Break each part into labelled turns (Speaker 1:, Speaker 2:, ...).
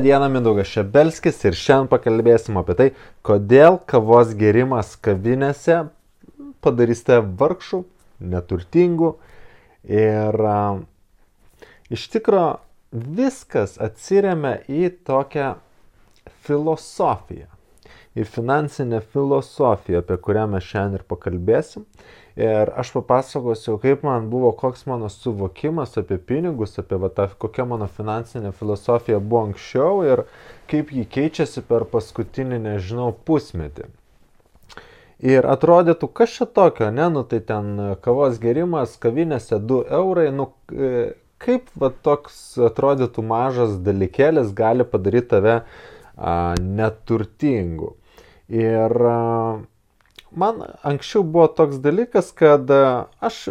Speaker 1: Diena, Mindaugas Šebelskis ir šiandien pakalbėsim apie tai, kodėl kavos gėrimas kavinėse padarys tave vargšų, neturtingų ir iš tikro viskas atsiremia į tokią filosofiją, į finansinę filosofiją, apie kurią mes šiandien ir pakalbėsim. Ir aš papasakosiu, kaip man buvo, koks mano suvokimas apie pinigus, apie kokia mano finansinė filosofija buvo anksčiau ir kaip ji keičiasi per paskutinį, pusmetį. Ir atrodytų, kas čia tokio, ne, tai ten kavos gėrimas, kavinėse 2 eurai, kaip toks atrodytų mažas dalykėlis gali padaryti tave neturtingu. Ir man anksčiau buvo toks dalykas, kad aš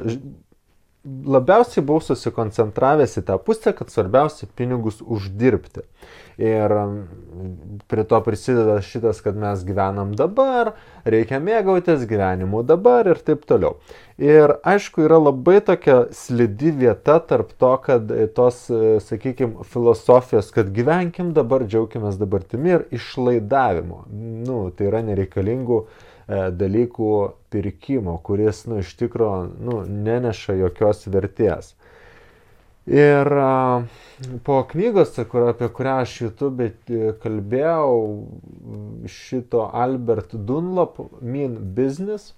Speaker 1: labiausiai buvau susikoncentravęs į tą pusę, kad svarbiausia pinigus uždirbti. Ir prie to prisideda šitas, kad mes gyvenam dabar, reikia mėgautis gyvenimu dabar ir taip toliau. Ir aišku, yra labai tokia slidi vieta tarp to, kad tos, sakykime, filosofijos, kad gyvenkim dabar, džiaukimės dabartimi ir išlaidavimo. Tai yra nereikalingų dalykų pirkimo, kuris, iš tikro, neneša jokios vertės. Ir po knygos, apie kurią aš YouTube kalbėjau, šito Albert Dunlop, Mean Business,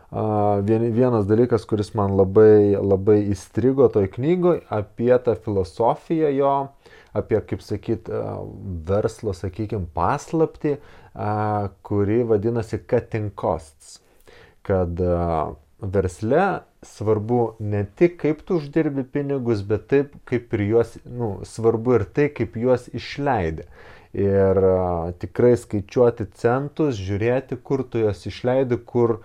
Speaker 1: vienas dalykas, kuris man labai įstrigo toj knygoj, apie tą filosofiją jo, apie, kaip sakyt, verslo, sakykime, paslaptį, kuri vadinasi cutting costs. Kad versle svarbu ne tik kaip tu uždirbi pinigus, bet taip kaip ir juos, svarbu ir tai, kaip juos išleidi. Ir tikrai skaičiuoti centus, žiūrėti, kur tu juos išleidi, kur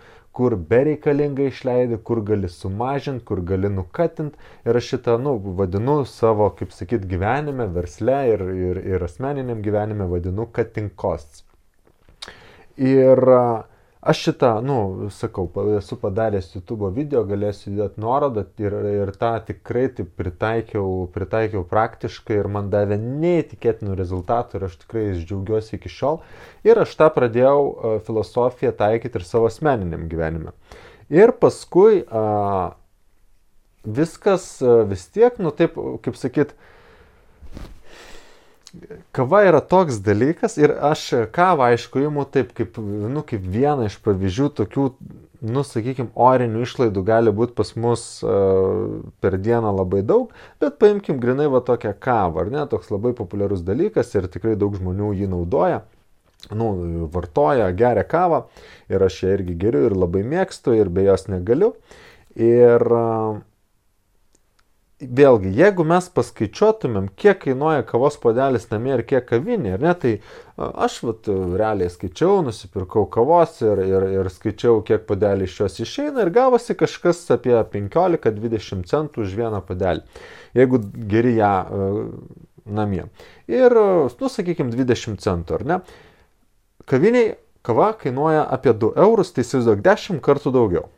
Speaker 1: bereikalingai išleidi, kur gali sumažinti, kur gali nukatinti. Ir aš šitą, vadinu savo, kaip sakyt, gyvenime, versle ir asmeniniam gyvenime vadinu cutting costs. Ir aš šitą, sakau, esu padaręs YouTube video, galėsiu įdėti nuorodą ir tą tikrai taip pritaikiau praktiškai ir man davė neįtikėtinų rezultatų ir aš tikrai džiaugiuosi iki šiol. Ir aš tą pradėjau filosofiją taikyti ir savo asmeniniam gyvenime. Ir paskui viskas vis tiek, taip, kaip sakyt, kava yra toks dalykas ir aš kavą, aišku, imu taip, kaip vieną iš pavyzdžių tokių, sakykime, orinių išlaidų gali būti pas mus per dieną labai daug, bet paimkim grinai tokią kavą, ar ne, toks labai populiarus dalykas ir tikrai daug žmonių jį naudoja, vartoja, geria kavą ir aš ją irgi geriu ir labai mėgstu ir be jos negaliu. Ir vėlgi, jeigu mes paskaičiuotumėm, kiek kainuoja kavos puodelis namie ir kiek kavinė, ar ne, tai aš realiai skaičiau, nusipirkau kavos ir skaičiau, kiek puodelį iš jos išeina ir gavosi kažkas apie 15-20 centų už vieną puodelį, jeigu geri ją namie. Ir, sakykime, 20 centų, ar ne? Kaviniai kava kainuoja apie 2 eurus, tai įsivaizduok 10 kartų daugiau.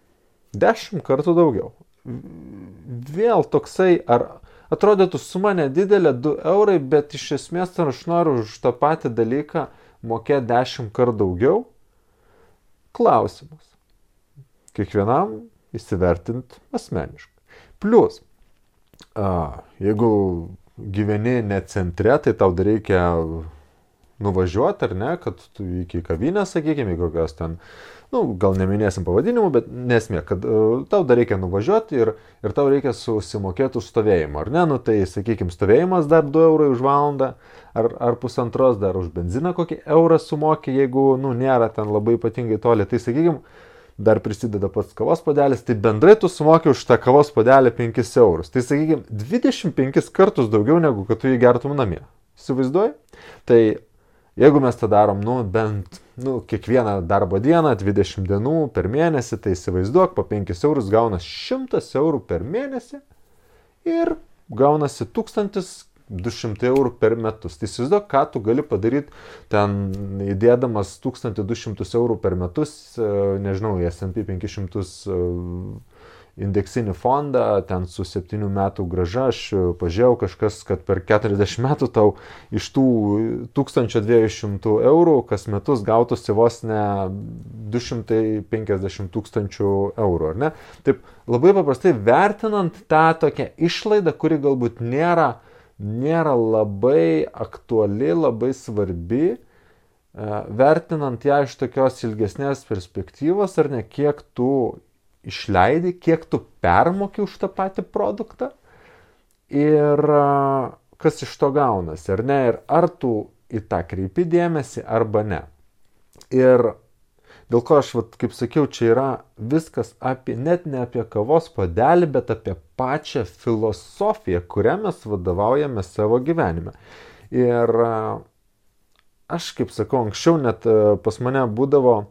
Speaker 1: 10 kartų daugiau. Vėl toksai, ar atrodytų suma nedidelė 2 eurai, bet iš esmės ar aš noriu už tą patį dalyką mokėti 10 kartų daugiau? Klausimas. Kiekvienam įsivertint asmeniškai. Plius, jeigu gyveni ne centre, tai tau dar reikia nuvažiuoti, ar ne, kad tu iki kavinės, sakykime, kokios ten, gal neminėsim pavadinimų, bet nesmė, kad tau dar reikia nuvažiuoti ir tau reikia susimokėti už stovėjimą, ar ne, tai, sakykime, stovėjimas dar 2 eurai už valandą, ar pusantros dar už benziną kokį eurą sumokė, jeigu, nėra ten labai ypatingai toli, tai, sakykime, dar prisideda pats kavos puodelis, tai bendrai tu sumokė už tą kavos puodelį 5 eurus, tai, sakykime, 25 kartus daugiau negu kad tu jį gertum namie. Įsivaizduoji? Tai jeigu mes tą darom, bent, kiekvieną darbo dieną, 20 dienų per mėnesį, tai įsivaizduok, po 5 eurus gaunas 100 eurų per mėnesį ir gaunasi 1200 eurų per metus. Tai įsivaizduok, ką tu gali padaryti ten įdėdamas 1200 eurų per metus, nežinau, į S&P 500 indeksinį fondą, ten su 7 metų grąža, aš pažiūrėjau kažkas, kad per 40 metų tau iš tų 1200 eurų kas metus gautųsi vos ne 250 tūkstančių eurų, ar ne? Taip labai paprastai vertinant tą tokią išlaidą, kuri galbūt nėra labai aktuali, labai svarbi, vertinant ją iš tokios ilgesnės perspektyvos, ar ne, kiek tu išleidi, kiek tu permoki už tą patį produktą ir kas iš to gaunasi, ar ne, ir ar tu į tą kreipi dėmesį arba ne. Ir dėl ko aš, kaip sakiau, čia yra viskas apie, net ne apie kavos puodelį, bet apie pačią filosofiją, kurią mes vadovaujame savo gyvenime. Ir aš, kaip sakau, anksčiau net pas mane būdavo,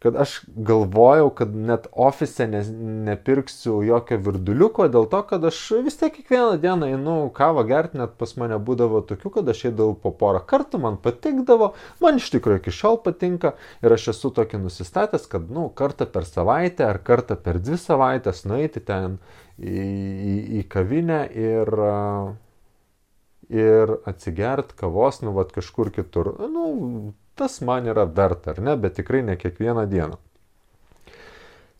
Speaker 1: kad aš galvojau, kad net ofise nepirksiu jokio virduliuko, dėl to, kad aš vis tiek kiekvieną dieną einu kavą gerti, net pas mane būdavo tokių, kad aš eidavau po porą kartų, man patikdavo, man iš tikrųjų iki šiol patinka ir aš esu tokį nusistatęs, kad kartą per savaitę ar kartą per 2 savaitės nueiti ten į kavinę ir atsigert kavos, kažkur kitur. Tas man yra verta, ar ne, bet tikrai ne kiekvieną dieną.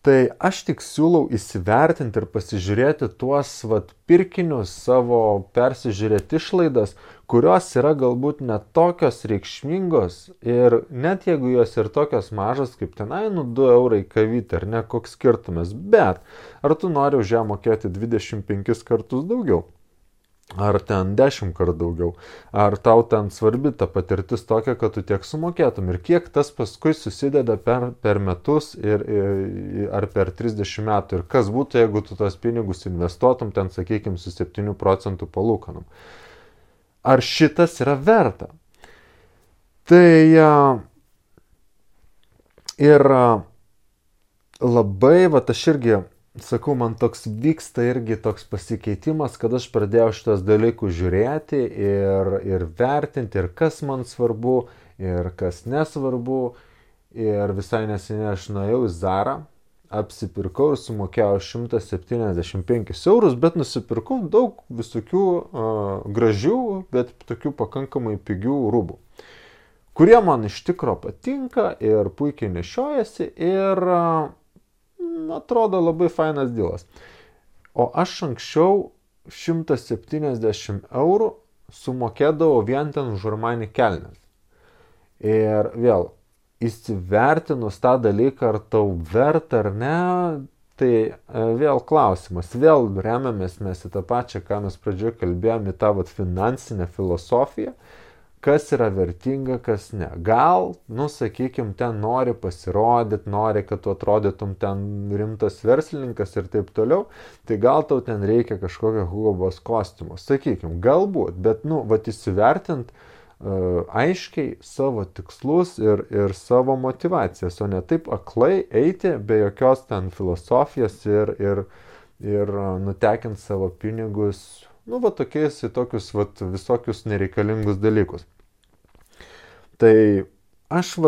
Speaker 1: Tai aš tik siūlau įsivertinti ir pasižiūrėti tuos pirkinius savo, persižiūrėti išlaidas, kurios yra galbūt net tokios reikšmingos ir net jeigu jos ir tokios mažos kaip tenai, 2 eurai kavytė, ar ne, koks skirtumas, bet ar tu nori už ją mokėti 25 kartus daugiau? Ar ten 10 kartų daugiau, ar tau ten svarbi ta patirtis tokia, kad tu tiek sumokėtum ir kiek tas paskui susideda per metus ar per 30 metų ir kas būtų, jeigu tu tos pinigus investuotum ten, sakykime, su 7 procentų palūkanom. Ar šitas yra verta? Tai ir labai, aš irgi sakau, man toks vyksta irgi toks pasikeitimas, kad aš pradėjau šitos dalykus žiūrėti ir vertinti, ir kas man svarbu, ir kas nesvarbu. Ir visai neseniai aš nuėjau į Zarą, apsipirkau ir sumokėjau 175 eurus, bet nusipirkau daug visokių gražių, bet tokių pakankamai pigių rūbų, kurie man iš tikro patinka ir puikiai nešiojasi ir atrodo labai fainas dylas. O aš anksčiau 170 eurų sumokėdavau vien ten už Armani kelnes. Ir vėl, įsivertinus tą dalyką, ar tau verta ar ne, tai vėl klausimas. Vėl remiamės mes į tą pačią, ką mes pradžioje kalbėjome, į tą finansinę filosofiją. Kas yra vertinga, kas ne. Gal, sakykime, ten nori pasirodyti, nori, kad tu atrodytum ten rimtas verslininkas ir taip toliau, tai gal tau ten reikia kažkokio Hugo Boss kostiumo. Sakykime, galbūt, bet, įsivertint aiškiai savo tikslus ir savo motivacijas, o ne taip aklai eiti be jokios ten filosofijos ir nutekint savo pinigus tokiais į tokius visokius nereikalingus dalykus. Tai aš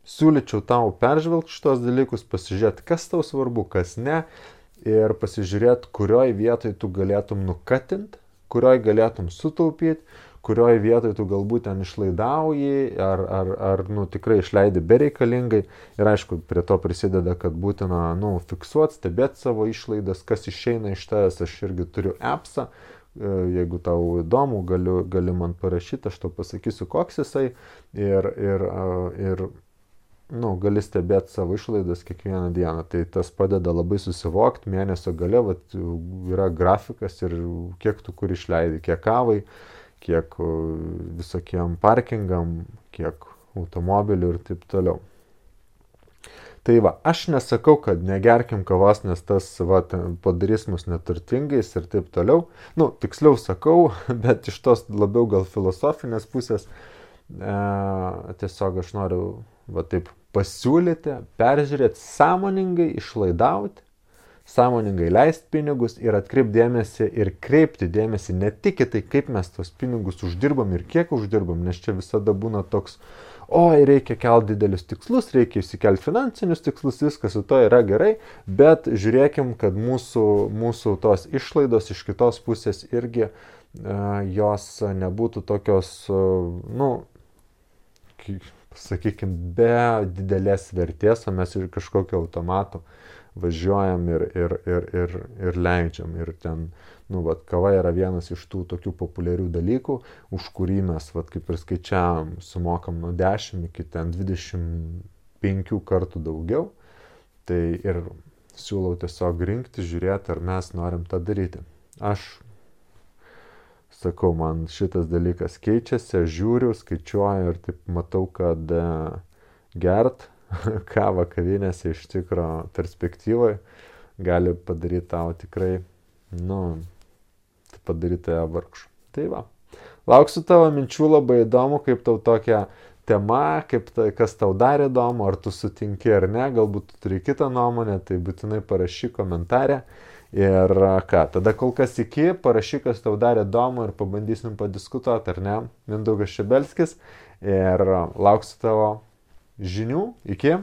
Speaker 1: siūlyčiau tau peržvelgti šitos dalykus, pasižiūrėti, kas tau svarbu, kas ne, ir pasižiūrėti, kurioj vietoj tu galėtum nukatinti, kurioj galėtum sutaupyti, kurioj vietoj tu galbūt ten išlaidauji, ar tikrai išleidi bereikalingai. Ir aišku, prie to prisideda, kad būtina fiksuoti, stebėti savo išlaidas, kas išeina iš tavęs. Aš irgi turiu appsą, jeigu tau įdomu, gali man parašyti, aš tau pasakysiu, koks jisai. Ir gali stebėti savo išlaidas kiekvieną dieną. Tai tas padeda labai susivokti, mėnesio gale yra grafikas ir kiek tu kur išleidi, kiek kavai, kiek visokiem parkingam, kiek automobilių ir taip toliau. Tai aš nesakau, kad negerkim kavos, nes tas padarys mus neturtingais ir taip toliau. Tiksliau sakau, bet iš tos labiau gal filosofinės pusės tiesiog aš noriu taip pasiūlyti, peržiūrėti, sąmoningai išlaidauti, sąmoningai leisti pinigus ir atkreipti dėmesį ir kreipti dėmesį ne tik į tai, kaip mes tos pinigus uždirbam ir kiek uždirbam, nes čia visada būna toks, oi, reikia kelti didelius tikslus, reikia įsikelti finansinius tikslus, viskas su to yra gerai, bet žiūrėkim, kad mūsų tos išlaidos iš kitos pusės irgi jos nebūtų tokios, sakykime, be didelės vertės, o mes ir kažkokio automatu važiuojam ir leidžiam. Ir ten, kava yra vienas iš tų tokių populiarių dalykų, už kurį mes, kaip ir skaičiavam, sumokam nuo 10 iki 25 kartų daugiau. Tai ir siūlau tiesiog rinkti, žiūrėti, ar mes norim tą daryti. Aš sakau, man šitas dalykas keičiasi, aš žiūriu, skaičiuoju ir taip matau, kad gert kavą kavinėse iš tikro perspektyvoje gali padaryti tau tikrai, padaryti tave vargšu. Tai va, lauksiu tavo minčių, labai įdomu, kaip tau tokia tema, kas tau dar įdomu, ar tu sutinki ar ne, galbūt tu turi kitą nuomonę, tai būtinai parašyk komentarę. Ir ką, tada kol kas parašyk, kas tau dar įdomu ir pabandysim padiskutuoti, ar ne, Mindaugas Šebelskis. Ir lauksiu tavo žinių. Iki.